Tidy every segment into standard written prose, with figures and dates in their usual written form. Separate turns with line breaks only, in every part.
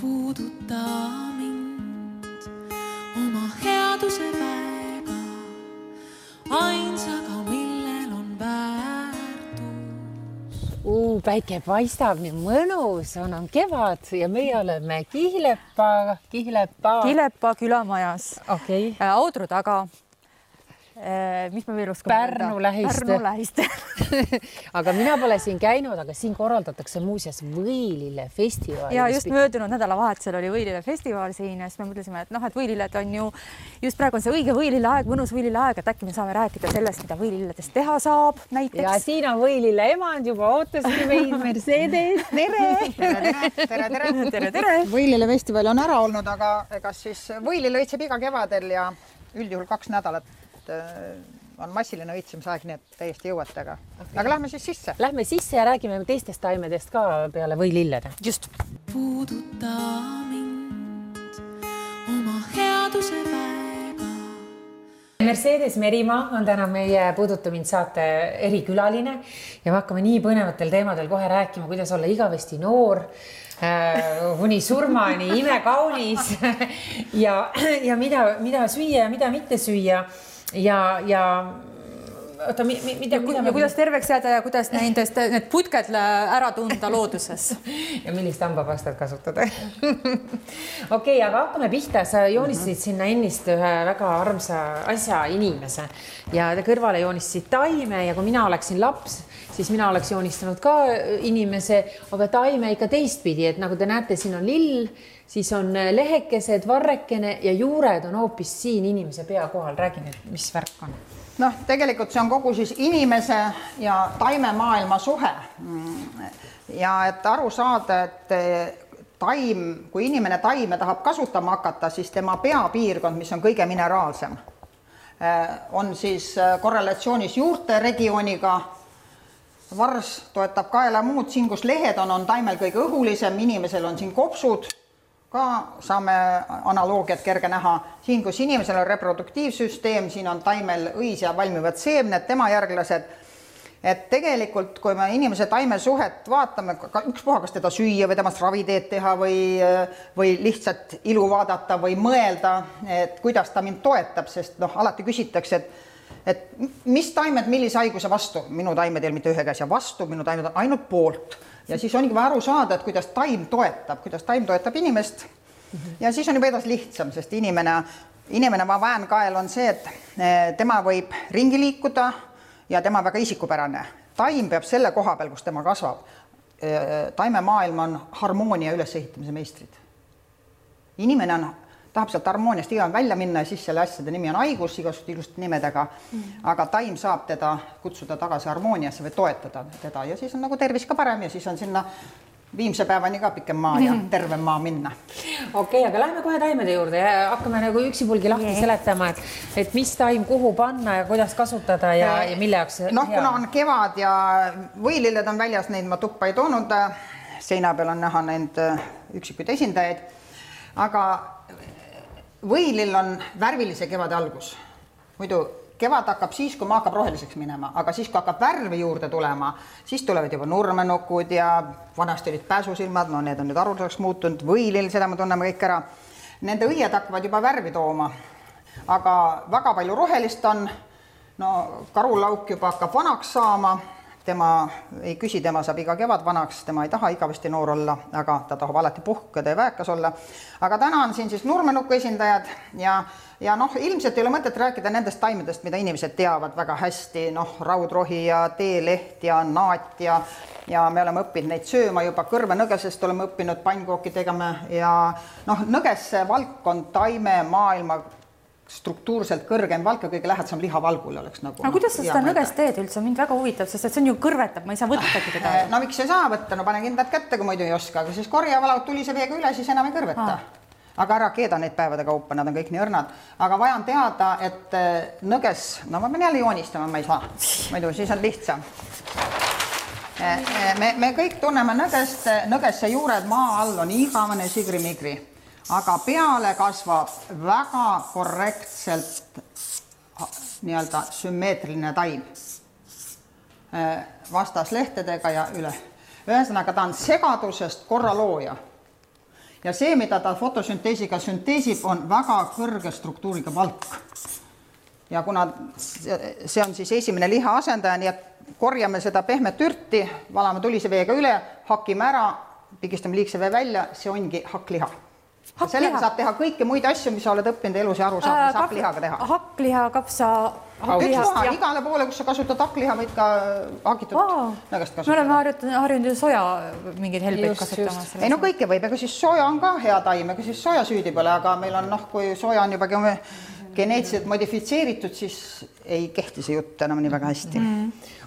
puuduta mind oma headuse väega, ainsaga, millel on väärtus.
Päike paistab, nii mõnus on kevad ja meie oleme Kihlepa
külamajas.
Okay.
Audru taga. Mis me veel oskame
Pärnu lähiste. Aga mina pole siin käinud, aga siin korraldatakse muuseas Võilille festival.
Ja just möödunud nädalavahetusel oli Võilille festival siin ja siis me mõtlesime, et Võililled on ju just praegu on see õige Võilille aeg, mõnus Võilille aeg, et äkki me saame rääkida sellest, mida Võililledest teha saab näiteks.
Ja siin on Võilille emand juba ootaski meid Mercedes.
Tere. Võilille festival on ära olnud, aga ega siis Võilille õitseb iga kevadel ja üldjuhul 2 nädalat on massiline õitsemisaeg, nii et täiesti jõuate, aga lähme siis sisse.
Lähme sisse ja räägime teistest taimedest ka peale võilillede.
Just.
Puuduta mind oma headuse väega.
Mercedes Merimaa on täna meie Puuduta mind saate erikülaline ja me hakkame nii põnevatel teemadel kohe rääkima, kuidas olla igavesti noor, kuni surmani imekaunis ja mida süüa ja mida mitte süüa. Ja
kuidas terveks jääda ja kuidas need putked ära tunda looduses.
Ja millist hambapastat kasutada. Okei, aga hakkame pihta. Sa joonistasid sinna ennist ühe väga armsa asja inimese ja te kõrvale joonistasid taime ja kui mina oleksin laps, siis mina oleks joonistanud ka inimese, aga taime ikka teistpidi, et nagu te näete, siin on lill, siis on lehekesed, varrekene ja juured on hoopis siin inimese pea kohal. Räägi nüüd, mis värk on?
Tegelikult see on kogu siis inimese ja taimemaailma suhe. Ja et aru saada, et taim, kui inimene taime tahab kasutama hakata, siis tema peapiirkond, mis on kõige mineraalsem, on siis korrelatsioonis juurte regiooniga. Vars toetab kaela muud, siin kus lehed on taimel kõige õhulisem, inimesel on siin kopsud, ka saame analoogiat kerge näha. Siin, kus inimesel on reproduktiivsüsteem, siin on taimel õis ja valmivad seemned, tema järglased. Et tegelikult, kui me inimese taime suhet vaatame, ükspuha, kas teda süüa või temast raviteed teha või lihtsalt ilu vaadata või mõelda, et kuidas ta mind toetab, sest alati küsitakse, et mis taimed, millise haiguse vastu? Minu taimed ei ole mitte ühe käes ja vastu, minu taimed on ainult poolt. Ja siis ongi vaja aru saada, et kuidas taim toetab inimest. Ja siis on juba edas lihtsam, sest inimene väänkael on see, et tema võib ringi liikuda ja tema väga isikupärane. Taim peab selle koha peal, kus tema kasvab. Taimemaailm on harmoonia ülesehitamise meistrid. Inimene tahab sealt harmooniast iga välja minna ja siis selle asjade nimi on haigus, igasugust ilusti nimedega, aga taim saab teda kutsuda tagasi harmooniasse või toetada teda ja siis on nagu tervis ka parem ja siis on sinna viimse päevani ka pikem maa ja terve maa minna.
Okei, aga lähme kohe taimede juurde ja hakkame nagu üksipulgi lahti seletama, et mis taim kuhu panna ja kuidas kasutada ja mille jaoks hea.
Kuna on kevad ja võililled on väljas, neid ma tuppa ei toonud, seina peal on näha neid üksikuid esindajaid, aga võilill on värvilise kevade algus. Muidu kevad hakkab siis, kui maa hakkab roheliseks minema, aga siis, kui hakkab värvi juurde tulema, siis tulevad juba nurmenukud ja vanasti olid pääsusilmad, need on nüüd arvuliseks muutunud, võilill, seda me tunneme kõik ära. Nende õied hakkavad juba värvi tooma, aga väga palju rohelist on, karulauk juba hakkab vanaks saama, tema ei küsi, tema saab iga kevad vanaks, tema ei taha igavesti noor olla, aga ta tahab alati puhkeda ja väekas olla. Aga täna on siin siis nurmenuku esindajad ja ilmselt ei ole mõtet rääkida nendest taimedest, mida inimesed teavad väga hästi, raudrohi ja teeleht ja naat ja me oleme õppinud neid sööma juba kõrvenõgesest, oleme õppinud pannkooki tegema ja nõgesse valk on taime maailma struktuurselt kõrgem valk ja kõige lähedasem lihavalgule oleks nagu.
Aga kuidas sa seda nõgest teed üldse? Mind väga huvitab, sest see on ju kõrvetab, ma ei saa võttagi teda.
Miks ei saa võtta? Pane kindlad kätte, kui muidu ei oska, aga siis korja valaud tulise veega üle, siis enam ei kõrveta. Aga ära keeda neid päevade kaupa, nad on kõik nii õrnad. Aga vaja on teada, et nõges, ma pean jälle joonistama, ma ei saa. Muidu siis on lihtsam. Me kõik tunneme nõgesse juured maa all on igavene sigri-migri. Aga peale kasvab väga korrektselt nii-öelda sümmeetriline taim vastas lehtedega ja üle. Ühesõnaga ta on segadusest korralooja ja see, mida ta fotosünteesiga sünteesib, on väga kõrge struktuuriga valk. Ja kuna see on siis esimene liha asendaja, nii et korjame seda pehmet ürti, valame tulise veega üle, hakime ära, pigistame liigse vee välja, see ongi hakkliha. Sellega saab teha kõiki muid asju, mis sa oled õppinud elus ja aru saab, mis hakklihaga teha.
Hakkliha, kapsa,
hakkliha. Igale poole, kus sa kasutad hakkliha, võid ka hakitud nõgast kasutada.
Me oleme harjunud ju soja mingeid helbeid kasutama.
Ei no kõike võib, ega siis soja on ka hea taim, ega siis soja süüdi pole, aga meil on, kui soja on juba geneetiliselt modifitseeritud, siis ei kehti see jutt enam nii väga hästi.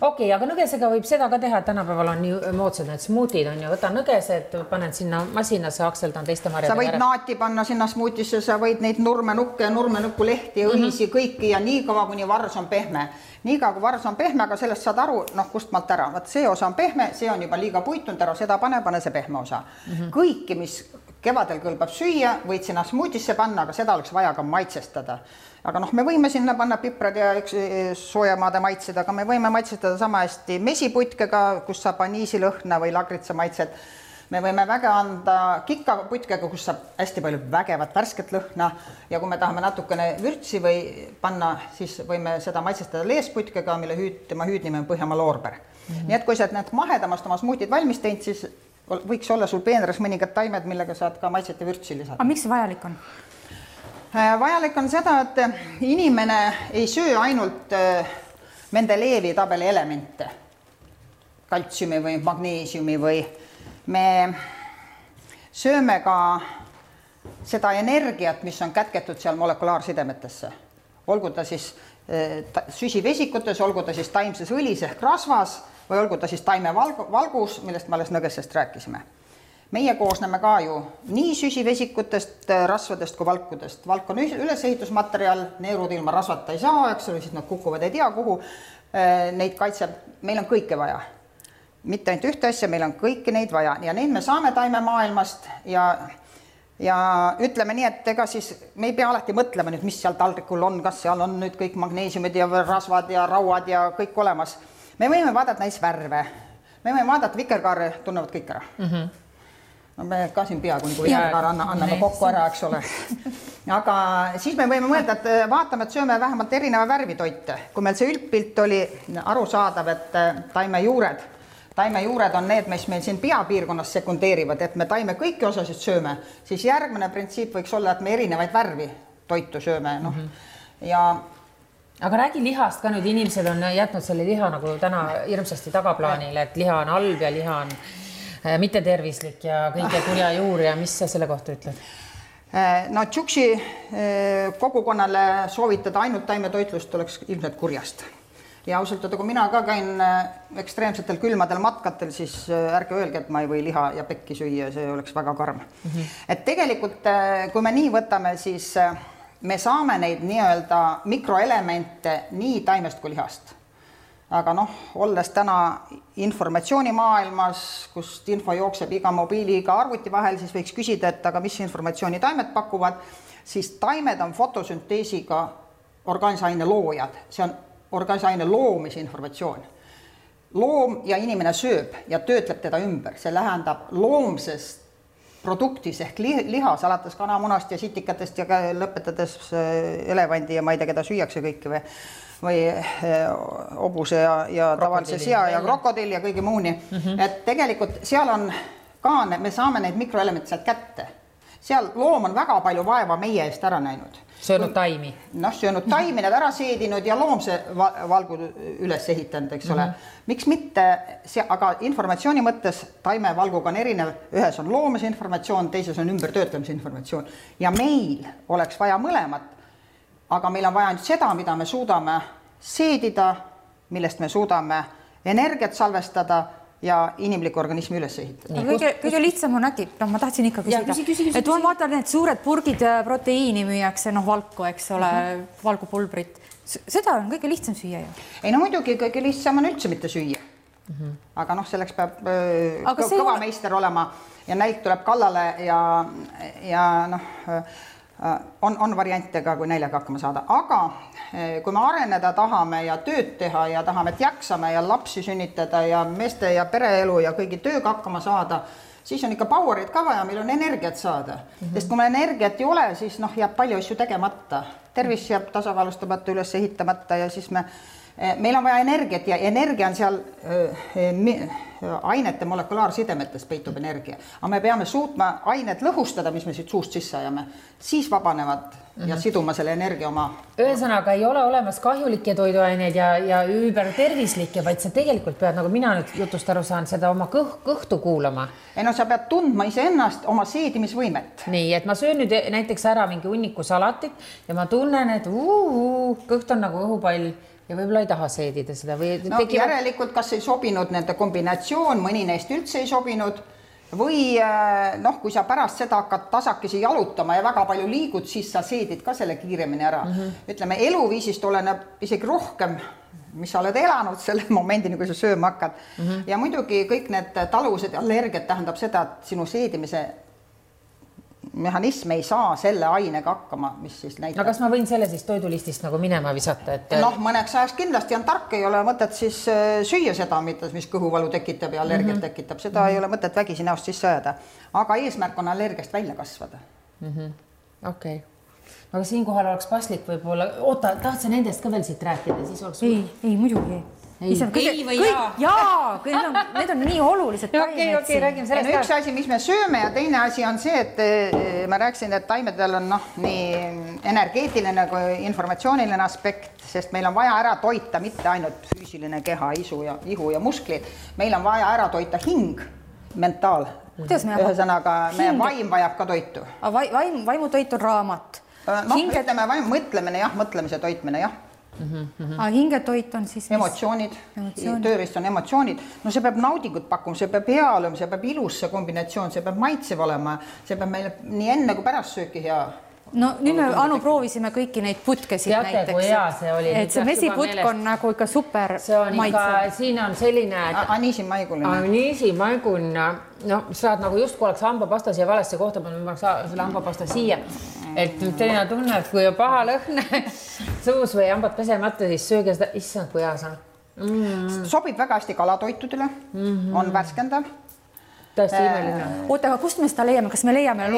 Okei, aga nõgesega võib seda ka teha, et tänapäeval on nii moodsad need smuutid on ju, võtan nõgesed, panen sinna masinasse, akseldan teiste marjadega.
Sa võid naati panna sinna smuutisse, sa võid neid nurmenukke ja nurmenukkulehti ja õhisi kõiki ja nii kaua, kuni vars on pehme. Nii kaua, kui vars on pehme, aga sellest saad aru, kust maalt ära. Vaat see osa on pehme, see on juba liiga puitunud ära, seda pane see pehme osa. Kõiki, mis kevadel kõlbab süüa, võid sinna smuutisse panna, aga seda oleks vaja ka maitsestada. Aga me võime sinna panna piprad ja soojamaade maitsed, aga me võime maitsestada sama hästi mesiputkega, kus saab aniisilõhna või lagritsa maitsed. Me võime väga anda kikaputkega, kus saab hästi palju vägevat värsket lõhna ja kui me tahame natukene vürtsi või panna, siis võime seda maitsestada leesputkega, mille tema hüüdnimi on Põhjamaa loorber. Nii et kui sa need mahedamast oma smuutid valmis teinud, siis võiks olla sul peenras mõningad taimed, millega saad ka maitset ja vürtsi lisada.
Aga miks see vajalik on?
Vajalik on seda, et inimene ei söö ainult Mendelejevi tabeli elemente, kaltsiumi või magneesiumi või me sööme ka seda energiat, mis on kätketud seal molekulaarsidemetesse. Olgu ta siis süsivesikutes, olgu ta siis taimses õlis ehk rasvas või olgu ta siis taimevalgus, millest me alles nõgesest rääkisime. Meie koosneme ka ju nii süsivesikutest, rasvadest kui valkudest. Valk on ülesehitusmaterial, neerud ilma rasvata ei saa, eks ole, siis nad kukuvad ei tea kuhu. Neid kaitseb, meil on kõike vaja. Mitte ainult ühte asja, meil on kõiki neid vaja ja neid me saame taimemaailmast ja ütleme nii, et ega siis me ei pea alati mõtlema nüüd, mis seal taldrikul on, kas seal on nüüd kõik magneesiumid ja rasvad ja rauad ja kõik olemas. Me võime vaadata näis värve, me võime vaadata vikerkaare, tunnevad kõik ära. Me ka siin peaaegu nagu vikerkaare anname kokku ära, eks ole. Aga siis me võime mõelda, et vaatame, et sööme vähemalt erineva värvitoite. Kui meil see üldpilt oli arusaadav, et taimejuured on need, mis meil siin peapiirkonnas sekundeerivad, et me taime kõiki osasid sööme, siis järgmine printsiip võiks olla, et me erinevaid värvi toitu sööme.
Aga räägi lihast ka nüüd, inimesed on jätnud selle liha nagu täna hirmsasti tagaplaanile, et liha on halb ja liha on mitte tervislik ja kõige kurja juur ja mis sa selle kohta ütled?
No tšuksi kogukonnale soovitada ainult taimetoitlust oleks ilmselt kurjast. Ja ausalt, kui mina ka käin ekstreemsetel külmadel matkatel, siis ärge öelge, et ma ei või liha ja pekki süüa, see oleks väga karm. Et tegelikult, kui me nii võtame, siis me saame neid nii-öelda mikroelemente nii taimest kui lihast. Aga olles täna informatsioonimaailmas, kust info jookseb iga mobiili, iga arvuti vahel, siis võiks küsida, et aga mis informatsiooni taimed pakuvad, siis taimed on fotosünteesiga organisaaine loojad. See on organisaaine loomise informatsioon. Loom ja inimene sööb ja töötleb teda ümber. See lähendab loomsest produktis ehk lihas, alates kanamunast ja sitikatest ja lõpetades elevandi ja ma ei tea, keda süüakse kõiki või hobuse ja tavalise sea ja krokodill ja kõigi muuni. Et tegelikult seal on ka, me saame neid mikroelemente sealt kätte. Seal loom on väga palju vaeva meie eest ära näinud.
Söönud taimi.
Söönud taimi, need ära seedinud ja loomse valgu üles ehitanud, eks ole. Miks mitte, aga informatsiooni mõttes taimevalguga on erinev. Ühes on loomse informatsioon, teises on ümbertöötlemise informatsioon. Ja meil oleks vaja mõlemat, aga meil on vaja ainult seda, mida me suudame seedida, millest me suudame energiat salvestada ja inimliku organismi üles ehitada.
Kõige lihtsam on äkki, ma tahtsin ikka küsida, et ma vaatan, need suured purgid proteiini müüakse, valku, eks ole, valgupulbrit. Seda on kõige lihtsam süüa ju.
Ei muidugi kõige lihtsam on üldse mitte süüa. Aga selleks peab kõva meister olema ja nälg tuleb kallale ja on variante ka, kui näljaga hakkama saada. Aga kui me areneda tahame ja tööd teha ja tahame, et jaksame ja lapsi sünnitada ja meeste ja pereelu ja kõigi tööga hakkama saada, siis on ikka powerit ka vaja, meil on energiat saada. Sest kui meil energiat ei ole, siis jääb palju asju tegemata. Tervis jääb tasakaalustamata, üles ehitamata ja siis meil on vaja energiat ja energia on seal ainete molekulaarsidemetes peitub energia. Aga me peame suutma ained lõhustada, mis me siit suust sisse ajame, siis vabanevad ja siduma selle energia oma.
Ühesõnaga ei ole olemas kahjulikke toiduaineid ja üübertervislikke, vaid sa tegelikult pead, nagu mina nüüd jutust aru saan, seda oma kõhtu kuulama.
Ei sa pead tundma iseennast oma seedimisvõimet.
Nii, et ma söön nüüd näiteks ära mingi hunniku salatit ja ma tunnen, et kõht on nagu õhupall ja võib-olla ei taha seedida seda või
järelikult kas ei sobinud nende kombinatsioon, mõni neist üldse ei sobinud või kui sa pärast seda hakkad tasakesi jalutama ja väga palju liigud, siis sa seedid ka selle kiiremini ära. Ütleme, eluviisist oleneb isegi rohkem, mis sa oled elanud selle momendini, kui sa sööma hakkad. Ja muidugi kõik need taluvused ja allergiad tähendab seda, et sinu seedimise mehhanism ei saa selle ainega hakkama, mis siis näitab.
No kas ma võin selle siis toidulistist nagu minema visata?
Mõneks ajaks kindlasti on tark, ei ole mõtet siis süüa seda, mis kõhuvalu tekitab ja allergiat tekitab. Seda ei ole mõtet vägisi näost sisse ajada. Aga eesmärk on allergiast välja kasvada.
Okei. Aga siinkohal oleks paslik võib-olla... Oota, tahtsa nendest ka veel siit rääkida?
Ei, muidugi.
Ei või jaa?
Jaa, need on nii olulised taimed.
Okei, räägime sellest.
Üks asi, mis me sööme ja teine asi on see, et ma rääkisin, et taimedel on nii energeetiline kui informatsiooniline aspekt, sest meil on vaja ära toita mitte ainult füüsiline keha, ihu ja musklid. Meil on vaja ära toita hing, mentaal. Ühesõnaga, meie vaim vajab ka toitu.
Vaimutoit on raamat.
Ütleme, mõtlemise toitmine, jah.
Hingetoit on siis
emotsioonid, tööriist on emotsioonid. See peab naudingut pakkuma, see peab hea olema, see peab ilus see kombinatsioon, see peab maitsev olema, see peab meile nii enne kui pärast sööki hea.
Nüüd me Anu proovisime kõiki neid putkesid näiteks.
Teate, kui hea see oli.
Et see mesiputk on nagu ikka super maitsev.
Siin on selline...
Aniisimaiguline.
Aniisimaiguline. Saad nagu just kui oleks hambapasta siia valesse kohta, ma selle hambapasta siia. Et teine tunne, et kui on paha lõhne suus või hambad pesemata, siis sööge seda, issand, kui hea saa.
Sobib väga hästi kalatoitudele, on värskendav.
Tõesti imeline.
Oota, aga kust me seda leiame? Kas me leiame?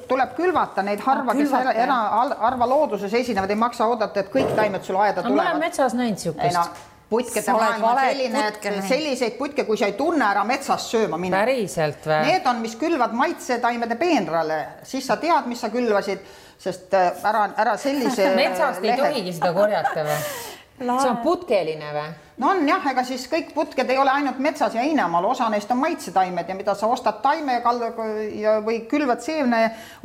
Tuleb külvata neid harva, kes harva looduses esinevad, ei maksa oodata, et kõik taimed sul aeda tulevad.
Ma olen metsas näinud siukest.
Putkede maailm on selline, et selliseid putke, kui sa ei tunne ära metsast sööma minna.
Päriselt või?
Need on, mis külvad maitsetaimede peenrale, siis sa tead, mis sa külvasid, sest ära sellise...
Metsast ei tohigi seda korjata või? See on putkeline või?
No on jah, ega siis kõik putked ei ole ainult metsas ja Einemaal, osa neist on maitsetaimed ja mida sa ostad taime või külvad seemne,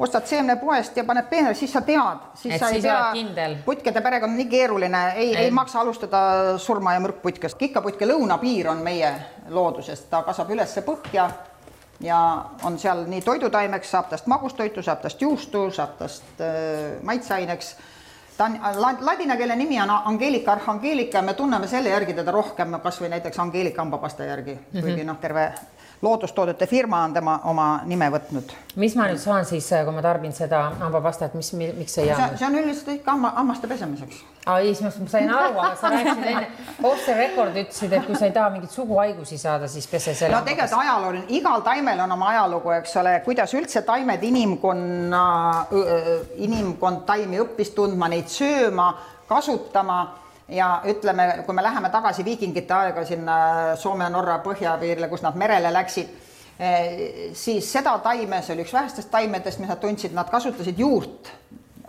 ostad seemne poest ja paned peenrale, siis sa tead. Siis sa ei pea, putkede perega on nii keeruline, ei maksa alustada surma ja mürkputkest. Kikkaputke lõunapiir on meie loodusest, ta kasvab ülesse põhja ja on seal nii toidutaimeks, saab tast magustoitu, saab tast juustu, saab tast maitseaineks. Ta on, ladina keele nimi on Angelika Arhangelika ja me tunneme selle järgi teda rohkem, kas või näiteks Angelika hambapasta järgi, kuigi terve loodustoodete firma on tema oma nime võtnud.
Mis ma nüüd saan siis, kui ma tarbin seda hambapastat, miks see jäänud?
See on üldiselt ikka hammaste pesemiseks.
Ai, ma sain aru, aga sa rääkisid enne, off the record ütlesid, et kui sa ei taha mingit suguhaigusi saada, siis pese selle
hambapasta. Tegelikult ajalooline, igal taimel on oma ajalugu, eks ole, kuidas üldse taimed inimkond taimi õppis tundma, neid sööma, kasutama. Ja ütleme, kui me läheme tagasi viikingite aega sinna Soome ja Norra põhjapiirile, kus nad merele läksid, siis seda taime, see oli üks vähestest taimedest, mis nad tundsid, nad kasutasid juurt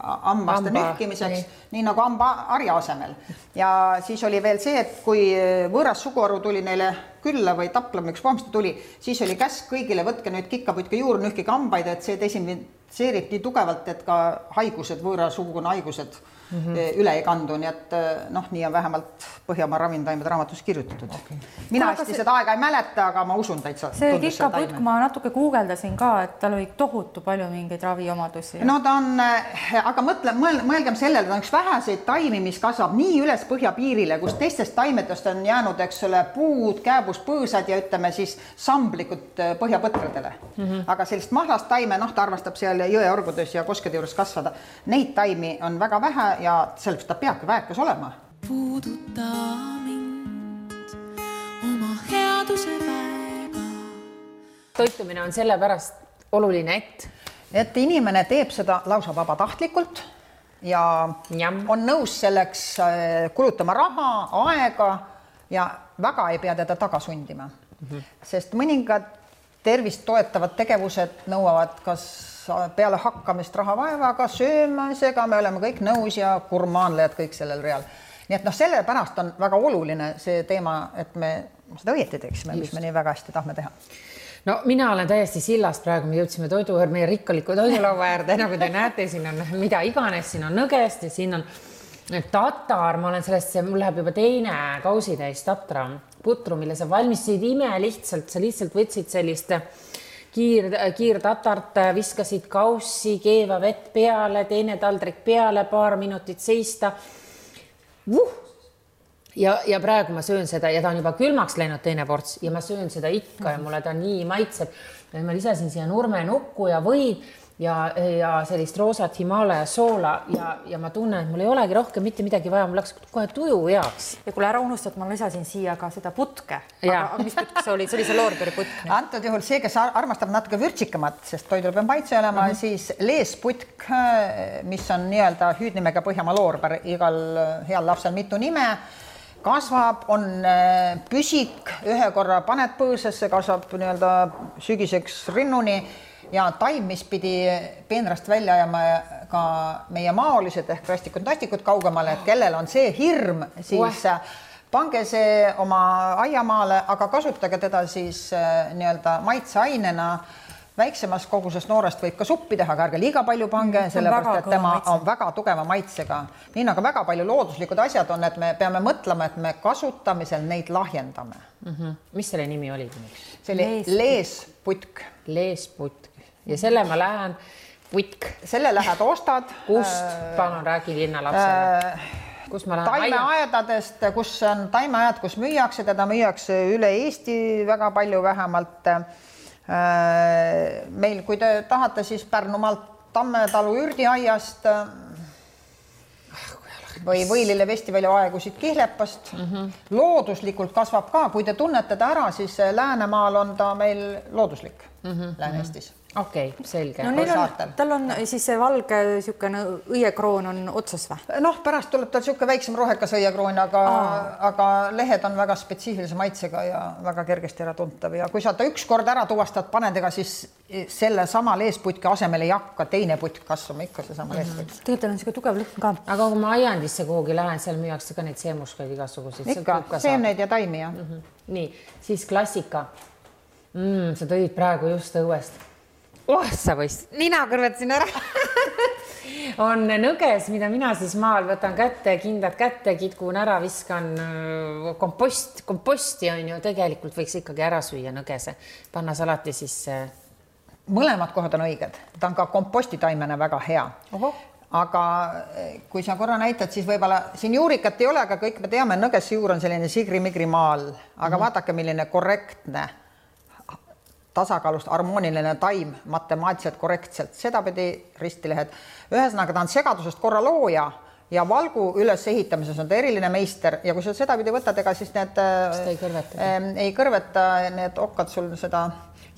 hammaste nühkimiseks, nii nagu hambaharja asemel. Ja siis oli veel see, et kui võõras suguharu tuli neile külla või taplama üks pomsta tuli, siis oli käsk kõigile, võtke nüüd kikkaputke juur, nühkige hambaid, et see desinfitseerib nii tugevalt, et ka haigused, võõra suguna haigused üle ei kandu, nii et nii on vähemalt Põhjamaa ravintaimed raamatus kirjutatud. Mina hästi seda aega ei mäleta, aga ma usun täitsa.
See kikkaputk ma natuke guugeldasin ka, et tal oli tohutu palju mingeid raviomadusi.
No ta on, aga mõelgem sellele, ta on üks väheseid taimi, mis kasvab nii üles põhjapiirile, kus teistest taimedest on jäänud, eks ole, puud, kääbus, põõsad ja ütleme siis samblikud põhjapõtradele. Aga sellist mahlast taime, ta armastab seal jõeorgudes ja koskede juures kasvada. Neid taimi on väga vähe ja sellepärast ta peabki väekas olema.
Puuduta mind oma headuse väega,
toitumine on sellepärast oluline,
et inimene teeb seda lausa vabatahtlikult ja on nõus selleks kulutama raha, aega ja väga ei pea teda taga sundima. Sest mõningad tervist toetavad tegevused nõuavad kas peale hakkamist raha vaevaga, söömisega, me oleme kõik nõus ja gurmaanlejad kõik sellel real. Nii et sellepärast on väga oluline see teema, et me seda õieti teeksime, mis me nii väga hästi tahame teha.
No mina olen täiesti sillast praegu, me jõudsime meie rikkaliku toidulaua äärde, nagu te näete, siin on mida iganes, siin on nõgest ja siin on tatar, ma olen sellest, mul läheb juba teine kausitäis tatra putru, mille sa valmistasid ime lihtsalt, sa lihtsalt võtsid sellist kiirtatart, viskasid kaussi, keeva vett peale, teine taldrik peale, paar minutit seista. Ja praegu ma söön seda ja ta on juba külmaks läinud teine ports ja ma söön seda ikka ja mulle ta nii maitseb. Ma lisasin siia nurmenukku ja võid ja sellist roosat Himalaja soola ja ma tunnen, et mul ei olegi rohkem mitte midagi vaja, mul läks kohe tuju heaks.
Ja kuule ära unustad, ma lisasin siia ka seda putke. Aga mis putk see oli? See oli see loorberi putk.
Antud juhul see, kes armastab natuke vürtsikamat, sest toidul peab maitse olema, siis leesputk, mis on nii-öelda hüüdnimega Põhjamaa loorber, igal heal lapsel mitu nime, kasvab, on püsik, ühe korra paned põõsasse, kasvab nii-öelda sügiseks rinnuni ja taim, mis pidi peenrast välja ajama ka meie maolised ehk rastikud-nastikud kaugemale, et kellel on see hirm, siis pange see oma aiamaale, aga kasutage teda siis nii-öelda maitseainena. Väiksemas koguses noorest võib ka suppi teha, aga ärge liiga palju pange, sellepärast, et tema on väga tugeva maitsega. Nii nagu väga palju looduslikud asjad on, et me peame mõtlema, et me kasutamisel neid lahjendame.
Mis selle nimi oli?
See oli leesputk.
Leesputk. Ja selle ma lähen putk.
Selle lähed ostad.
Kust? Palun räägi linnalapsele. Kus ma lähen?
Taimeaedadest, kus on taimeaed, kus müüakse, teda müüakse üle Eesti väga palju vähemalt. Meil, kui te tahate, siis Pärnumaalt Tammetalu ürdiaiast või Võilile Vestivälja aegusid Kihlepast. Looduslikult kasvab ka, kui te tunnete ta ära, siis Läänemaal on ta meil looduslik Lääne-Eestis.
Okei, selge.
No tal on siis see valge niisugune õiekroon on otsas või?
Noh, pärast tuleb tal niisugune väiksem rohekas õiekroon, aga lehed on väga spetsiifilise maitsega ja väga kergesti ära tuntav. Ja kui sa ta üks kord ära tuvastad panedega, siis selle sama leesputki asemel ei hakka teine putk kasvama, ikka see sama leesputk.
Tegelikult on niisugune tugev lõhn ka.
Aga kui ma aiandisse kuhugi lähen, seal müüakse ka neid seemuskaid igasuguseid.
Ikka, seemneid ja taimi, jah.
Nii, siis klassika. Sa tõid praegu just õuest. Sa võist, nina kõrvetasin ära. On nõges, mida mina siis maal võtan kätte, kindad kätte, kitkun ära, viskan komposti on ju, tegelikult võiks ikkagi ära süüa nõgese. Panna salati sisse.
Mõlemad kohad on õiged. Ta on ka kompostitaimena väga hea. Aga kui sa korra näitad, siis võib-olla siin juurikat ei ole, aga kõik me teame, nõgesse juur on selline sigri-migri maal. Aga vaadake, milline korrektne tasakaalust harmooniline taim matemaatiliselt korrektselt, seda pidi ristilehed. Ühesõnaga, ta on segadusest korra looja ja valgu üles ehitamises on ta eriline meister ja kui sa seda pidi võtad, ega siis need ei kõrveta need okkad sul seda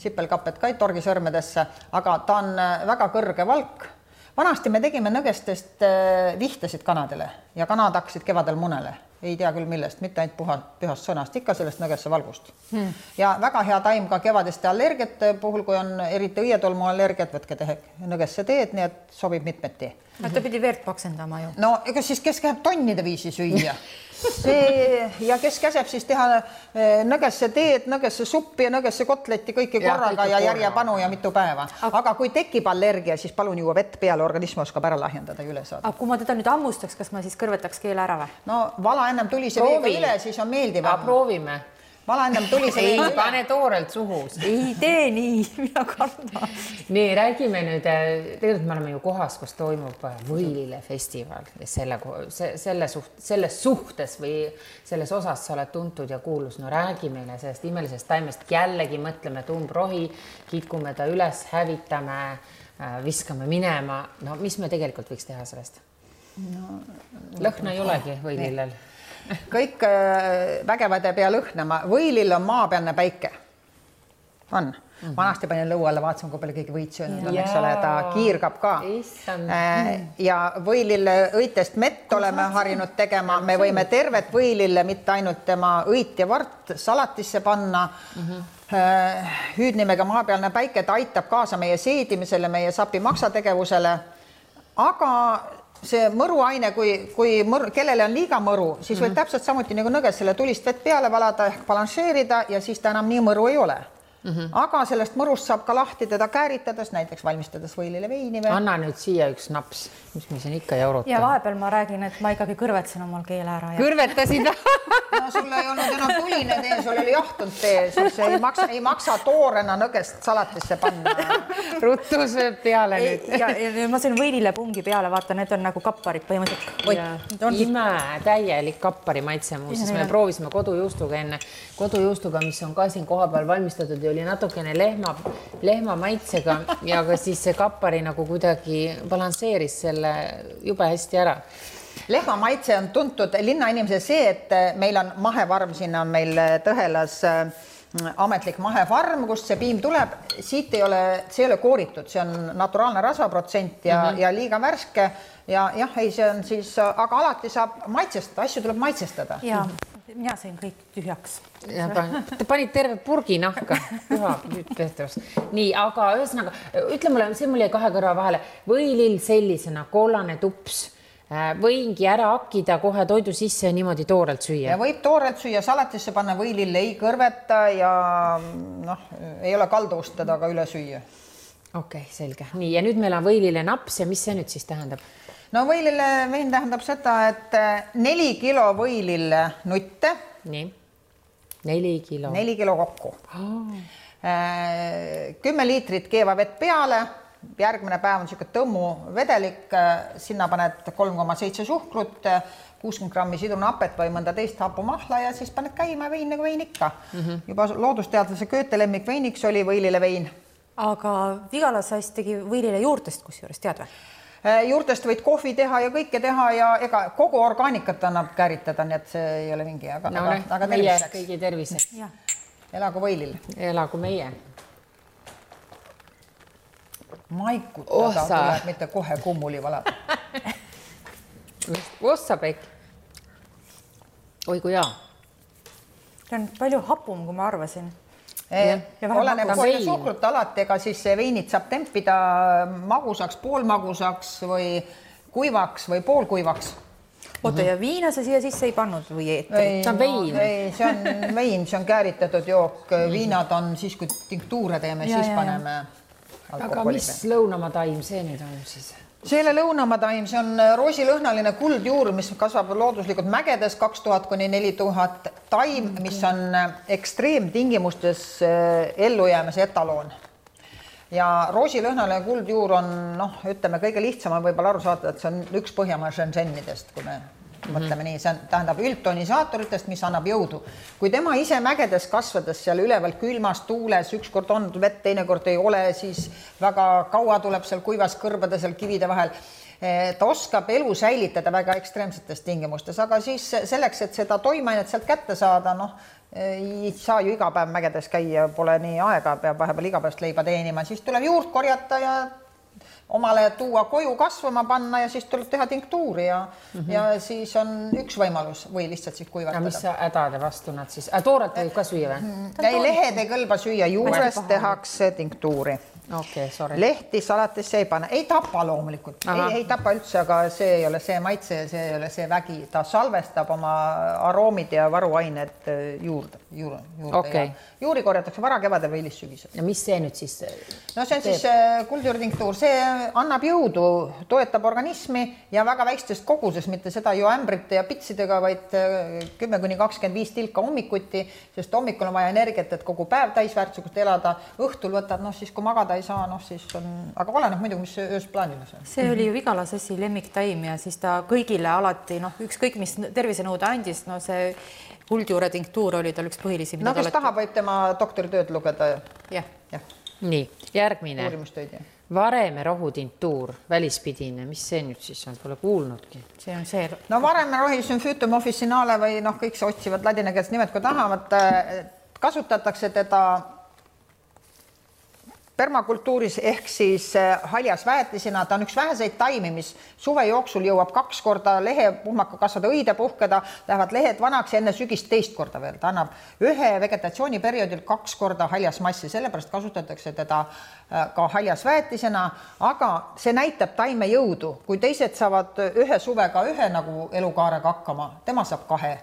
sipelkapet ka ei torgi sõrmedesse, aga ta on väga kõrge valk. Vanasti me tegime nõgestest vihtesid kanadele ja kanad hakkasid kevadel munele. Ei tea küll millest, mitte ainult pühast sõnast, ikka sellest nõgesse valgust. Ja väga hea taim ka kevadeste allergiate puhul, kui on eriti õietolmu allergiat, võtke nõgesse teed, nii et sobib mitmeti.
Ta pidi veert paksendama ju.
No ega siis kes käib tonnide viisi süüa? Ja kes käseb siis teha nõgesse teed, nõgesse suppi ja nõgesse kotletti kõiki korraga ja järjepanu ja mitu päeva. Aga kui tekib allergia, siis palun juua vett peale, organism oskab ära lahjendada ja üle saada.
Aga kui ma teda nüüd ammustaks, kas ma siis kõrvetaks keele ära või?
No vala ennem tulise veega üle, siis on meeldivam.
Proovime.
Vala ennem tulise veega üle.
Ei, pane toorelt suhu.
Ei tee nii, mina kardan.
Nii, räägime nüüd, tegelikult me oleme ju kohas, kus toimub Võilile festival ja selles suhtes või selles osas sa oled tuntud ja kuulus. No räägi meile sellest imelisest taimest, jällegi mõtleme tumbrohi, kitkume ta üles, hävitame, viskame minema. No mis me tegelikult võiks teha sellest? Lõhna ei olegi Võililel.
Kõik vägevade pea lõhnama. Võilil on maapealne päike. on. Vanasti panin lõu alla, vaatasin, kui palju keegi võit söönud on, eks ole, ta kiirgab ka. Ja võilille õitest mett oleme harinud tegema. Me võime tervet võilille, mitte ainult tema õit ja vart salatisse panna. Hüüdnimega maapealne päike, ta aitab kaasa meie seedimisele, meie sapi maksategevusele. Aga see mõruaine, kui kellele on liiga mõru, siis võib täpselt samuti nagu nõges selle tulist vett peale valada ehk balanseerida ja siis ta enam nii mõru ei ole. Aga sellest mõrust saab ka lahti teda kääritades, näiteks valmistades võilile veini.
Anna nüüd siia üks naps, mis me siin ikka jaurutame.
Ja vahepeal ma räägin, et ma ikkagi kõrvetsin omal keele ära.
Kõrvetasid?
No sul ei olnud enam tuline tee, sul oli jahtunud tee, sul see ei maksa toorena nõgest salatisse panna.
Ruttu sööb peale nüüd.
Ja ma sõin võilile pungi peale, vaata, need on nagu kapparid põhimõtteliselt.
Ime, täielik kappari maitse muuses. Me proovisime kodujuustuga enne. Kodujuustuga, mis on ka siin koha peal valmistatud ja oli natukene lehma maitsega ja ka siis see kappari nagu kuidagi balansseeris selle jube hästi ära.
Lehma maitse on tuntud linnainimese see, et meil on mahefarm, sinna on meil Tõhelas ametlik mahefarm, kust see piim tuleb. Siit see ei ole kooritud, see on naturaalne rasvaprotsent ja liiga värske ja jah, ei, see on siis, aga alati saab maitsestada, asju tuleb maitsestada.
Ja mina sõin kõik tühjaks.
Te panid terve purgi nahka. Nii, aga ühesõnaga, ütle mulle, see mul jäi kahe kõrva vahele. Võilill sellisena, kollane tups, võingi ära akkida kohe toidu sisse ja niimoodi toorelt süüa.
Ja võib toorelt süüa, salatisse panna võilill ei kõrveta ja ei ole kalduvust teda ka üle süüa.
Okei, selge. Nii, ja nüüd meil on võilille naps ja mis see nüüd siis tähendab?
No võilille vein tähendab seda, et 4 kilo võilille nutte.
Nii, 4 kilo.
4 kilo kokku. 10 liitrit keeva vett peale, järgmine päev on selline tõmmu vedelik, sinna paned 3,7 suhkrut, 60 grammi sidrunapet või mõnda teist hapumahla ja siis paned käima vein nagu vein ikka. Juba loodusteadlase Goethe lemmik veiniks oli võilille vein.
Aga Vigala Sass tegi võilile juurtest kusjuures, tead või?
Juurtest võid kohvi teha ja kõike teha ja ega kogu orgaanikat annab käritada, nii et see ei ole mingi, aga
terviseks. Kõigi terviseks.
Elagu võilil.
Elagu meie.
Maikutada tuleb mitte kohe kummuli valada.
Ossapekk. Oi kui hea.
See on palju hapum, kui ma arvasin.
Oleneb palju suhkrut alati, ega siis veinid saab tempida magusaks, poolmagusaks või kuivaks või poolkuivaks.
Oota, ja viina sa siia sisse ei pannud või eetrit?
See on vein.
See on vein, see on kääritatud jook. Viinad on siis, kui tinktuure teeme, siis paneme alkoholi.
Aga mis lõunamaa taim see nüüd on siis?
Selle lõunamaa taim, see on roosilõhnaline kuldjuur, mis kasvab looduslikult mägedes 2000 kuni 4000 taim, mis on ekstreemtingimustes ellujäämise etaloon. Ja roosilõhnaline kuldjuur on, ütleme, kõige lihtsam on võib-olla aru saada, et see on üks Põhjamaa Shenzhenidest, kui me mõtleme nii, see tähendab üldtonisaatoritest, mis annab jõudu. Kui tema ise mägedes kasvades seal üleval külmas tuules, ükskord on vett, teinekord ei ole, siis väga kaua tuleb seal kuivas kõrbade seal kivide vahel. Ta oskab elu säilitada väga ekstreemsetes tingimustes, aga siis selleks, et seda toimainet sealt kätte saada, ei saa ju iga päev mägedes käia, pole nii aega, peab vahepeal igapäevast leiba teenima, siis tuleb juurt korjata ja omale tuua koju kasvama panna ja siis tuleb teha tinktuuri ja siis on üks võimalus või lihtsalt siis kuivatada.
Ja mis hädade vastu nad siis? Tooret võib ka süüa või?
Lehed ei kõlba süüa, juurest tehakse tinktuuri.
Okei, sorry.
Lehti salatisse ei pane, ei tapa loomulikult, ei tapa üldse, aga see ei ole see maitse ja see ei ole see vägi. Ta salvestab oma aroomid ja varuained juurde.
Okay.
Juuri korjatakse vara kevadel või hilissügisel.
Ja mis see nüüd siis?
No see on siis kuldjuurtinktuur, see annab jõudu, toetab organismi ja väga väikestest koguses, mitte seda ju ämbrite ja pitsidega, vaid 10-25 tilka hommikuti, sest hommikul on vaja energiat, et kogu päev täisväärtuslikult elada. Õhtul võtad, siis kui magada ei saa, siis on, aga oleneb muidugi, mis ööst plaanimas on.
See oli ju Vigala Sassi lemmiktaim ja siis ta kõigile alati, ükskõik mis tervisenõude andis, see kuldjuure tinktuur oli tal üks põhilisi.
No kes tahab, võib tema doktoritööd lugeda.
Jah.
Nii, järgmine.
Uurimustööd, jah.
Vareme rohutintuur, välispidine, mis see nüüd siis on, pole kuulnudki.
See on see.
No vareme rohi sümfüütum officinale või kõik see otsivad ladinakeelset nimed, kui tahavad, kasutatakse teda permakultuuris ehk siis haljasväetisena, ta on üks väheseid taimi, mis suve jooksul jõuab 2 korda lehepuhmaka kasvada, õide puhkeda, lähevad lehed vanaks ja enne sügist 2 korda veel. Ta annab ühe vegetatsiooniperioodil 2 korda haljasmassi, sellepärast kasutatakse teda ka haljasväetisena, aga see näitab taime jõudu. Kui teised saavad ühe suvega ühe nagu elukaarega hakkama, tema saab 2.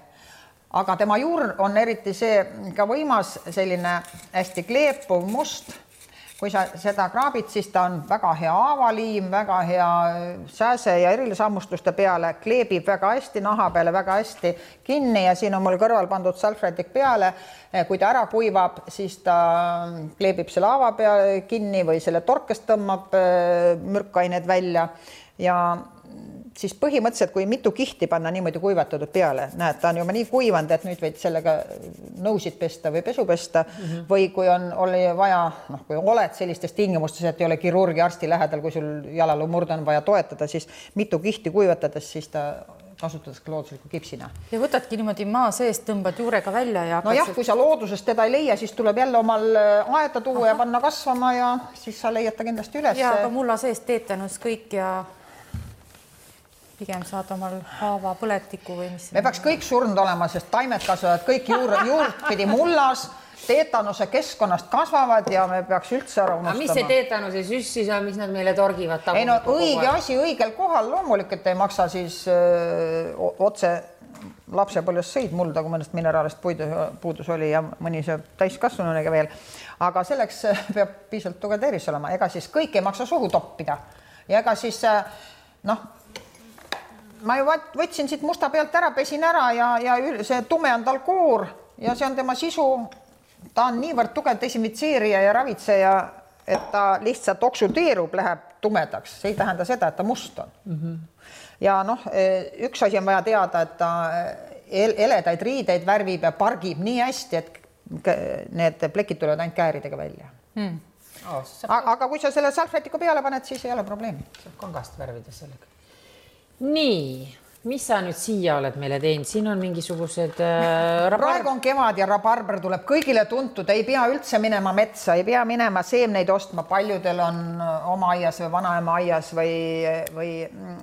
Aga tema juur on eriti see ka võimas, selline hästi kleepuv must. Kui sa seda kraabid, siis ta on väga hea aavaliim, väga hea sääse ja erilishammustuste peale, kleebib väga hästi naha peale, väga hästi kinni ja siin on mul kõrval pandud salfrätik peale. Kui ta ära kuivab, siis ta kleebib selle aava peale kinni või selle torkest tõmbab mürkained välja ja siis põhimõtteliselt, kui mitu kihti panna niimoodi kuivatatud peale, näed, ta on juba nii kuivanud, et nüüd võid sellega nõusid pesta või pesu pesta või kui oli vaja, kui oled sellistes tingimustes, et ei ole kirurgi arsti lähedal, kui sul jalaluu murd on vaja toetada, siis mitu kihti kuivatades, siis ta kasutatakse loodusliku kipsina.
Ja võtadki niimoodi maa seest, tõmbad juurega välja ja...
No jah, kui sa loodusest teda ei leia, siis tuleb jälle omal aeda tuua ja panna kasvama ja siis sa leiad ta kindlasti üles.
Ja ka mulla seest teetanus kõik ja pigem saad omal haava põletiku või mis...
Me peaks kõik surnud olema, sest taimed kasvavad kõik juurt pidi mullas, teetanuse keskkonnast kasvavad ja me peaks üldse ära unustama.
Mis see teetanuse süssis on, mis nad meile torgivad?
Ei no õige asi õigel kohal, loomulikult ei maksa siis otse lapsepõlves sõid mulda, kui mõnest mineraalist puudus oli ja mõni see täiskasvanunega veel. Aga selleks peab piisavalt tugev tervis olema. Ega siis kõik ei maksa suhu toppida. Ja ega siis ma ju võtsin siit musta pealt ära, pesin ära ja see tume on tal koor ja see on tema sisu. Ta on niivõrd tugev desinfitseerija ja ravitseja, et ta lihtsalt oksudeerub, läheb tumedaks. See ei tähenda seda, et ta must on. Ja üks asi on vaja teada, et ta eledaid riideid värvib ja pargib nii hästi, et need plekid tulevad ainult kääridega välja. Aga kui sa selle salfrätiku peale paned, siis ei ole probleemi.
Saab kangast värvida sellega. Nii, mis sa nüüd siia oled meile teinud? Siin on mingisugused...
Praegu on kevad ja rabarber tuleb kõigile tuntud. Ei pea üldse minema metsa, ei pea minema seemneid ostma. Paljudel on oma aias või vanaema aias või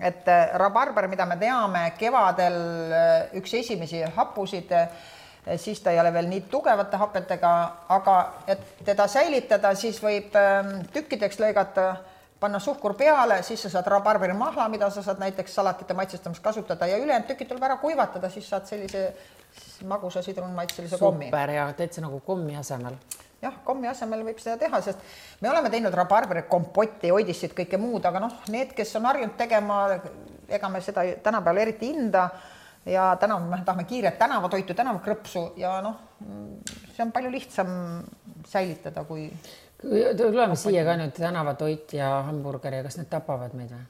et rabarber, mida me teame, kevadel üks esimesi happusid, siis ta ei ole veel nii tugevate hapetega, aga et teda säilitada, siis võib tükkideks lõigata, panna suhkur peale, siis sa saad rabarberi mahla, mida sa saad näiteks salatite maitsestamist kasutada ja ülejäänud tükid tuleb ära kuivatada, siis saad sellise magusa sidrunmaitselise kommi.
Super ja teed see nagu kommi asemel.
Jah, kommi asemel võib seda teha, sest me oleme teinud rabarberi kompotti, oidissid, kõike muud, aga need, kes on harjunud tegema, ega me seda tänapäeval eriti hinda ja me tahame kiiret tänavatoitu, tänavakrõpsu ja see on palju lihtsam säilitada kui...
Tuleme siia ka nüüd tänavatoit ja hamburger ja kas need tapavad meid või?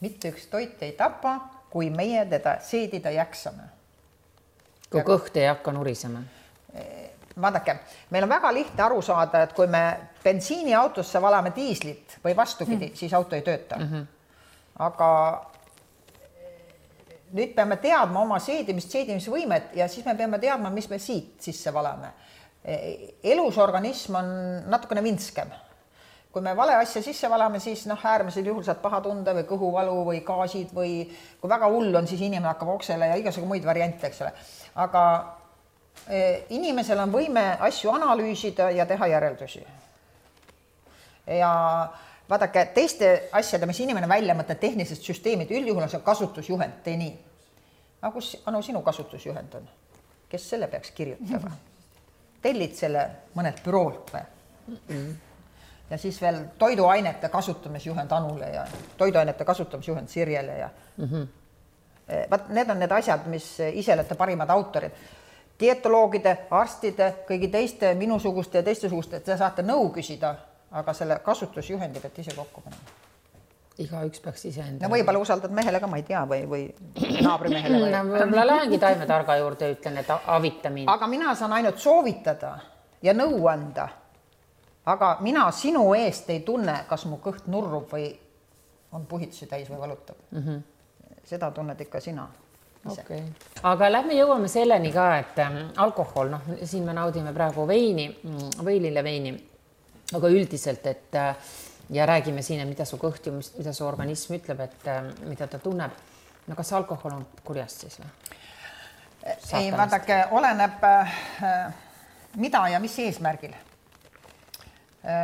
Mitte üks toit ei tapa, kui meie teda seedida jaksame.
Kui kõht ei hakka nurisema?
Vaadake, meil on väga lihtne aru saada, et kui me bensiiniautosse valame diislit või vastupidi, siis auto ei tööta. Aga nüüd peame teadma oma seedimisvõimet ja siis me peame teadma, mis me siit sisse valame. Elus organism on natukene vinskem. Kui me vale asja sisse valame, siis äärmisel juhul saad paha tunda või kõhuvalu või gaasid või kui väga hull on, siis inimene hakkab oksele ja igasugu muid variante, eks ole. Aga inimesel on võime asju analüüsida ja teha järeldusi. Ja vaadake, teiste asjade, mis inimene välja mõtleb, tehnilised süsteemid, üldjuhul on see kasutusjuhend, tee nii. Aga kus sinu kasutusjuhend on? Kes selle peaks kirjutama? Tellid selle mõned büroolt või? Ja siis veel toiduainete kasutamisjuhend Anule ja toiduainete kasutamisjuhend Sirjele. Ja... Need on need asjad, mis ise olete parimad autorid. Dietoloogide, arstide, kõigi teiste minusuguste ja teiste-suguste, et te saate nõu küsida, aga selle kasutusjuhendi peate ise kokku panema.
Igaüks peaks ise enda.
Ja võib-olla usaldad mehele ka, ma ei tea, või naabrimehele.
Võib-olla lähengi taimetarga juurde, ütlen, et avita mind.
Aga mina saan ainult soovitada ja nõu anda. Aga mina sinu eest ei tunne, kas mu kõht nurrub või on puhitusi täis või valutab. Seda tunned ikka sina.
Okay. Aga lähme jõuame selleni ka, et alkohol, noh, siin me naudime praegu veini, võilileveini, aga üldiselt, et ja räägime siin, mida su kõht, mida su organism ütleb, et mida ta tunneb. No kas alkohol on kurjast siis või?
Ei, vaadake, oleneb mida ja mis eesmärgil.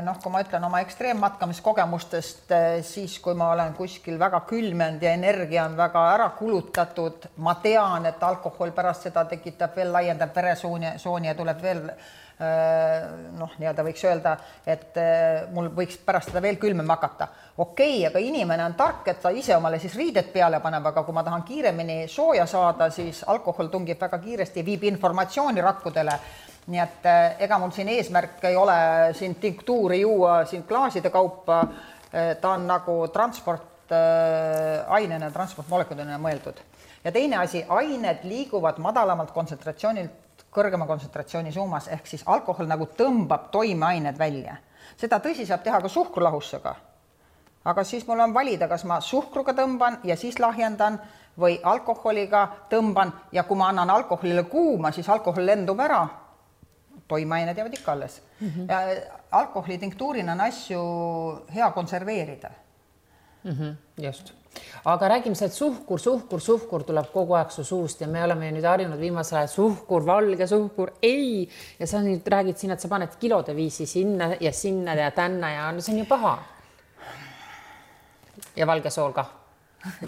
Noh, kui ma ütlen oma ekstreemmatkamiskogemustest, siis kui ma olen kuskil väga külmenud ja energia on väga ära kulutatud, ma tean, et alkohol pärast seda tekitab veel laiendab veresooni ja tuleb veel noh, nii-öelda võiks öelda, et mul võiks pärast seda veel külmem hakata. Okei, aga inimene on tark, et ta ise omale siis riided peale paneb, aga kui ma tahan kiiremini sooja saada, siis alkohol tungib väga kiiresti ja viib informatsiooni rakkudele. Nii et ega mul siin eesmärk ei ole siin tinktuuri juua siin klaaside kaupa, ta on nagu transportainena, transportmolekulina mõeldud. Ja teine asi, ained liiguvad madalamalt kontsentratsioonilt kõrgema kontsentratsiooni suunas, ehk siis alkohol nagu tõmbab toimeained välja. Seda tõsi saab teha ka suhkrulahussega. Aga siis mul on valida, kas ma suhkruga tõmban ja siis lahjendan või alkoholiga tõmban ja kui ma annan alkoholile kuuma, siis alkohol lendub ära. Toimeained jäävad ikka alles. Ja alkoholi tinktuurina on asju hea konserveerida.
Just. Aga räägime sealt suhkur tuleb kogu aeg su suust ja me oleme nüüd harjunud viimasel ajal suhkur, valge suhkur, ei. Ja sa nüüd räägid siin, et sa paned kilode viisi sinna ja tänna ja no see on ju paha. Ja valge sool ka,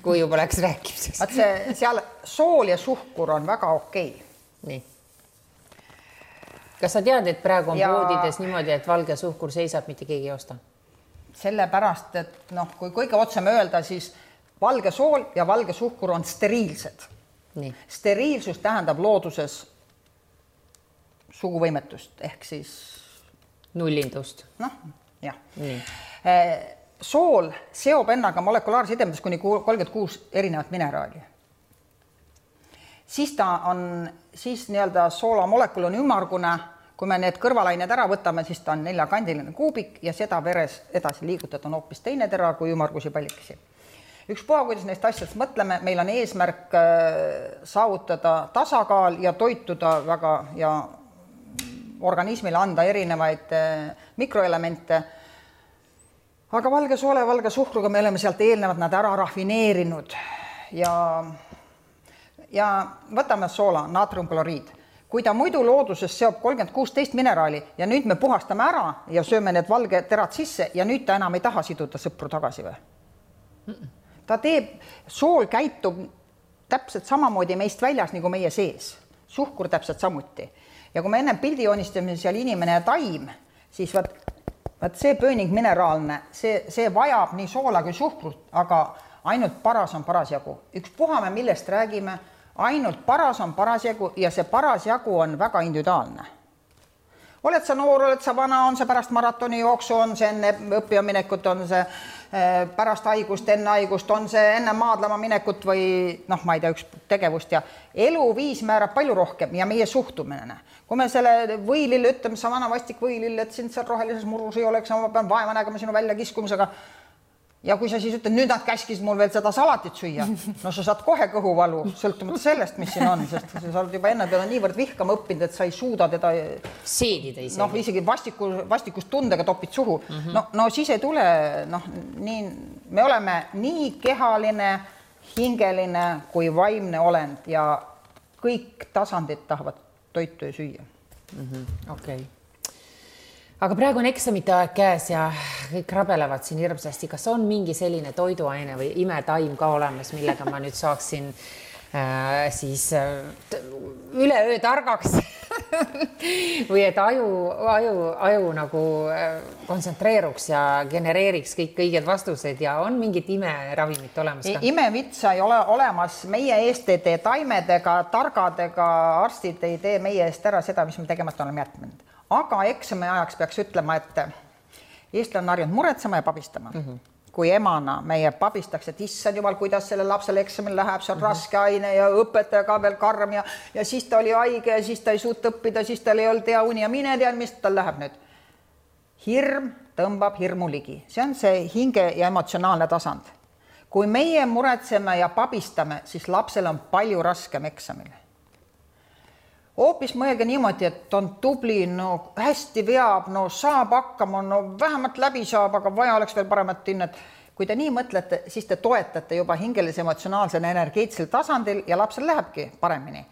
kui juba läks rääkimiseks.
Vaat see seal sool ja suhkur on väga okei.
Nii. Kas sa tead, et praegu on poodides niimoodi, et valge suhkur seisab, mitte keegi ei osta?
Sellepärast, et noh, kui kõige otsem öelda, siis valge sool ja valge suhkur on steriilsed.
Nii.
Steriilsus tähendab looduses suguvõimetust, ehk siis
nullindust.
Noh, jah.
Nii.
Sool seob ennaga molekulaarside kuni 36 erinevat mineraali. Siis ta on, siis nii-öelda soolamolekul on ümmargune, kui me need kõrvalained ära võtame, siis ta on 4-kandiline kuubik ja seda veres edasi liigutada on hoopis teine tera kui ümmargusi pallikesi. Ükspuha, kuidas neist asjadest mõtleme, meil on eesmärk saavutada tasakaal ja toituda väga ja organismile anda erinevaid mikroelemente. Aga valge soole, valge suhkruga me oleme sealt eelnevad nad ära rafineerinud ja võtame soola, naatriumkloriid. Kui ta muidu looduses seob 36 mineraali ja nüüd me puhastame ära ja sööme need valge terad sisse ja nüüd ta enam ei taha siduda sõpru tagasi või? Ta teeb, sool käitub täpselt samamoodi meist väljas nagu meie sees. Suhkur täpselt samuti. Ja kui me enne pildi joonistame seal inimene ja taim, siis vaat see pööning mineraalne, see vajab nii soola kui suhkrut, aga ainult paras on parasjagu. Ükspuha me millest räägime, ainult paras on parasjagu ja see parasjagu on väga individuaalne. Oled sa noor, oled sa vana, on see pärast maratoni jooksu, on see enne õppijaminekut, on see pärast haigust, enne haigust, on see enne maadlema minekut või noh, ma ei tea, üks tegevust ja eluviis määrab palju rohkem ja meie suhtumine. Kui me selle võilille ütleme, sa vana vastik võilille, et sind seal rohelises murus ei oleks, ma pean vaeva nägema sinu välja kiskumisega. Ja kui sa siis ütled, nüüd nad käskis mul veel seda salatit süüa, no sa saad kohe kõhuvalu, sõltumata sellest, mis siin on, sest sa oled juba enne teda niivõrd vihkama õppinud, et sa ei suuda teda
seedida isegi.
Noh, isegi vastikust tundega topid suhu. No siis ei tule, noh, nii, me oleme nii kehaline, hingeline kui vaimne olend ja kõik tasandid tahavad toitu ja süüa.
Okei. Aga praegu on eksamite aeg käes ja kõik rabelevad siin hirmsasti. Kas on mingi selline toiduaine või imetaim ka olemas, millega ma nüüd saaksin siis üleöö targaks või et aju nagu kontsentreeruks ja genereeriks kõik õiged vastused ja on mingit imeravimit olemas ka?
Imevitsa ei ole olemas. Meie eest ei tee taimedega, targadega, arstid ei tee meie eest ära seda, mis me tegemata oleme jätnud. Aga eksami ajaks peaks ütlema, et eestlane on harjunud muretsema ja pabistama. Kui emana meie pabistaks, et issand jumal, kuidas selle lapsele eksamil läheb, see on raske aine ja õpetaja ka veel karm ja siis ta oli haige ja siis ta ei suut õppida, siis tal ei olnud hea uni ja mine tean, mis tal läheb nüüd. Hirm tõmbab hirmu ligi. See on see hinge ja emotsionaalne tasand. kui meie muretseme ja pabistame, siis lapsel on palju raskem eksamil. Hoopis mõelge niimoodi, et on tubli, no hästi veab, no saab hakkama, no vähemalt läbi saab, aga vaja oleks veel paremat hinnet. Kui te nii mõtlete, siis te toetate juba hingelise emotsionaalsel energeetilisel tasandil ja lapsel lähebki paremini.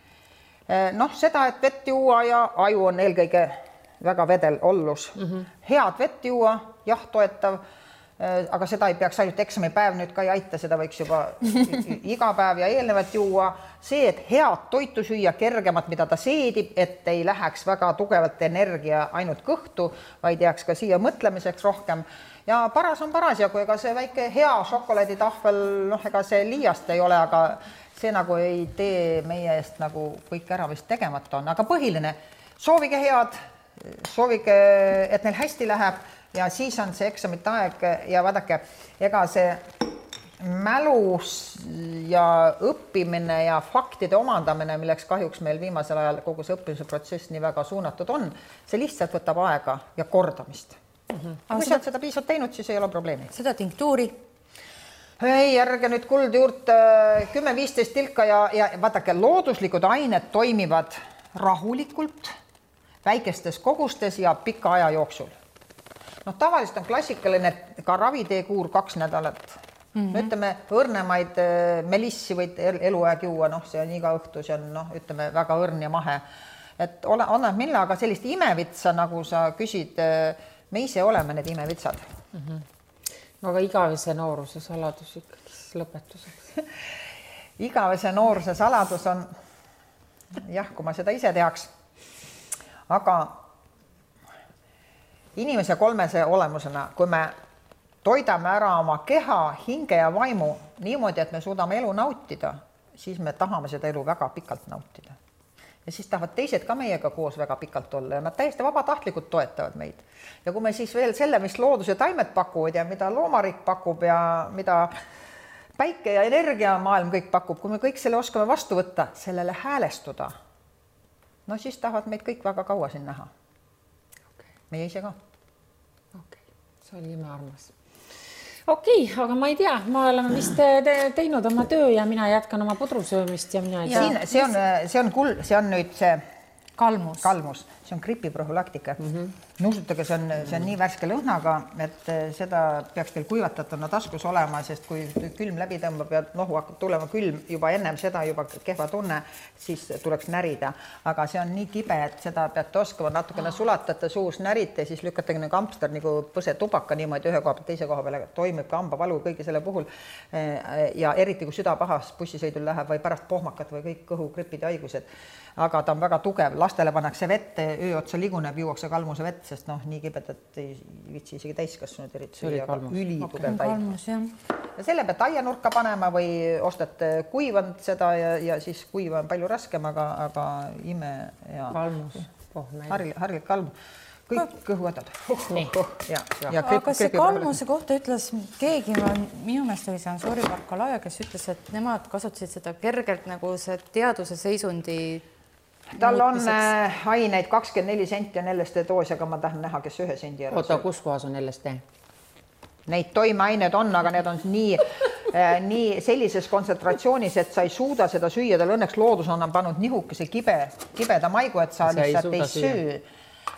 Noh, seda, et vett juua ja aju on eelkõige väga vedel ollus. Head vett juua, jah, toetav, aga seda ei peaks ainult eksamipäev nüüd ka ei aita, seda võiks juba iga päev ja eelnevat juua. See, et head toitu süüa, kergemat, mida ta seedib, et ei läheks väga tugevalt energia ainult kõhtu, vaid jääks ka siia mõtlemiseks rohkem. Ja paras on paras ja kui ega see väike hea šokolaaditahvel, noh, ega see liiast ei ole, aga see nagu ei tee meie eest nagu kõik ära vist tegemata on. Aga põhiline, soovige head, soovige, et neil hästi läheb ja siis on see eksamite aeg ja vaadake, ega see mälus ja õppimine ja faktide omandamine, milleks kahjuks meil viimasel ajal kogu see õppimise protsess nii väga suunatud on, see lihtsalt võtab aega ja kordamist. Kui sa oled seda piisavalt teinud, siis ei ole probleemi.
Seda tinktuuri?
Ei, ärge nüüd kuld juurde 10-15 tilka ja vaadake, looduslikud ained toimivad rahulikult, väikestes kogustes ja pika aja jooksul. Noh, tavaliselt on klassikaline ka raviteekuur 2 nädalat. Ütleme, õrnemaid melissi võid eluaeg juua, noh, see on iga õhtu, see on, noh, ütleme, väga õrn ja mahe. Et on mille, aga sellist imevitsa, nagu sa küsid, me ise oleme need imevitsad.
Aga igavese nooruse saladus ikkagi lõpetuseks.
Igavese nooruse saladus on, jah, kui ma seda ise teaks, aga inimese kolmese olemusena, kui me toidame ära oma keha, hinge ja vaimu niimoodi, et me suudame elu nautida, siis me tahame seda elu väga pikalt nautida. Ja siis tahavad teised ka meiega koos väga pikalt olla ja nad täiesti vabatahtlikult toetavad meid. Ja kui me siis veel selle, mis loodus ja taimed pakuvad ja mida loomarik pakub ja mida päike ja energiamaailm kõik pakub, kui me kõik selle oskame vastu võtta, sellele häälestuda, no siis tahavad meid kõik väga kaua siin näha. Meie ise ka.
See oli imearmas. Aga ma ei tea, ma oleme vist teinud oma töö ja mina jätkan oma pudrusöömist ja mina ei tea.
See on nüüd see
kalmus.
See on gripiprofülaktika. Nuusutage, see on nii värske lõhnaga, et seda peaks teil kuivatatuna taskus olema, sest kui külm läbi tõmbab ja nohu hakkab tulema külm juba ennem seda juba kehva tunne, siis tuleks närida. Aga see on nii kibe, et seda peate oskama natukene sulatate suus, närite, siis lükkate nagu kampster nagu põse tubaka niimoodi ühe koha peal, teise koha peale toimib ka hambavalu kõigi selle puhul. Ja eriti kui süda pahas bussisõidul läheb või pärast pohmakat või kõik kõhugripid ja haigused. Aga ta on väga tugev, lastele pannakse vette, öö otsa liguneb, juuakse kalmuse vett, sest noh, nii kibedat ei vitsi isegi täiskasvanud eriti süüa, aga ülitugev taim. Ja selle pealt aianurka panema või ostate kuivanud seda ja siis kuiva on palju raskem, aga ime ja harilik kalmus. Kõik kõhuõdad.
Aga see kalmuse kohta ütles keegi, minu meelest oli see Ansori Barkalaja, kes ütles, et nemad kasutasid seda kergelt nagu see teaduse seisundi
tal on aineid 24 senti on LSD doos, aga ma tahan näha, kes 1 sendi ära.
Oota, kus kohas on LSD?
Neid toimeained on, aga need on nii sellises kontsentratsioonis, et sa ei suuda seda süüa. Tal õnneks loodus on pannud nihukese kibeda maigu, et sa lihtsalt ei süü.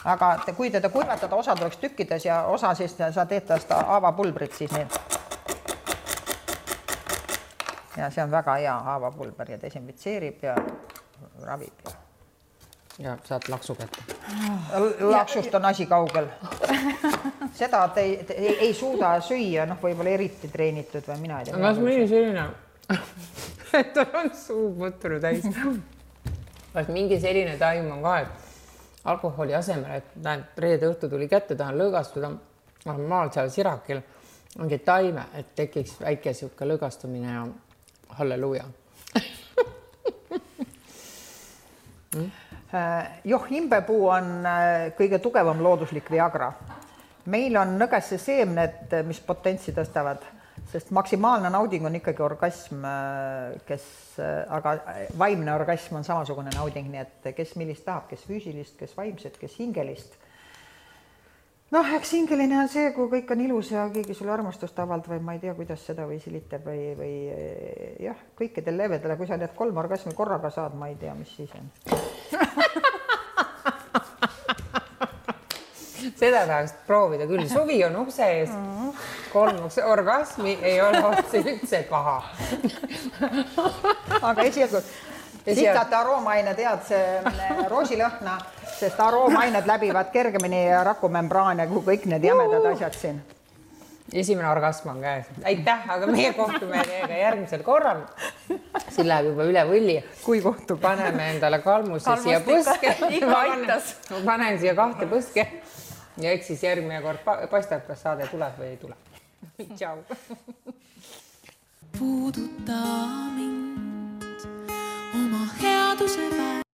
Aga kui teda kuivatada, osa tuleks tükkides ja osa siis sa teed tast haavapulbrit siis nii. Ja see on väga hea haavapulber ja desinfitseerib ja ravib.
Ja saad laksu kätte.
Laksust on asi kaugel. Seda ei suuda süüa, noh, võib-olla eriti treenitud või mina ei tea.
Kas mõni selline, et tal on suu mõtturu täis. Kas mingi selline taim on ka, et alkoholi asemel, et näed, reede õhtu tuli kätte, tahan lõõgastuda, maal seal sirakil ongi taime, et tekiks väike siuke lõõgastumine ja halleluuja.
Joh, imbepuu on kõige tugevam looduslik Viagra. Meil on nõgesse seemned, mis potentsi tõstavad, sest maksimaalne nauding on ikkagi orgasm, aga vaimne orgasm on samasugune nauding, nii et kes millist tahab, kes füüsilist, kes vaimset, kes hingelist. noh, eks hingeline on see, kui kõik on ilus ja keegi sulle armastust avaldab või ma ei tea, kuidas seda või silitab või jah, kõikidel levedele, kui sa need 3 orgasmi korraga saad, ma ei tea, mis siis on.
Seda tahaks proovida küll. Suvi on ukse ees. 3 orgasmi ei ole otse üldse paha.
Aga esialgu sitate aroomained head see roosilõhna, sest aroomained läbivad kergemini rakumembraane kui kõik need jämedad asjad siin.
Esimene orgasm on käes. Aitäh, aga meie kohtume teiega järgmisel korral. Siin läheb juba üle võlli.
Kui kohtub?
Paneme endale kalmuse siia põske. Panen siia 2 põske. Ja eks siis järgmine kord paistab, kas saade tuleb või ei tule. Tšau.
Puuduta mind oma headuse väe.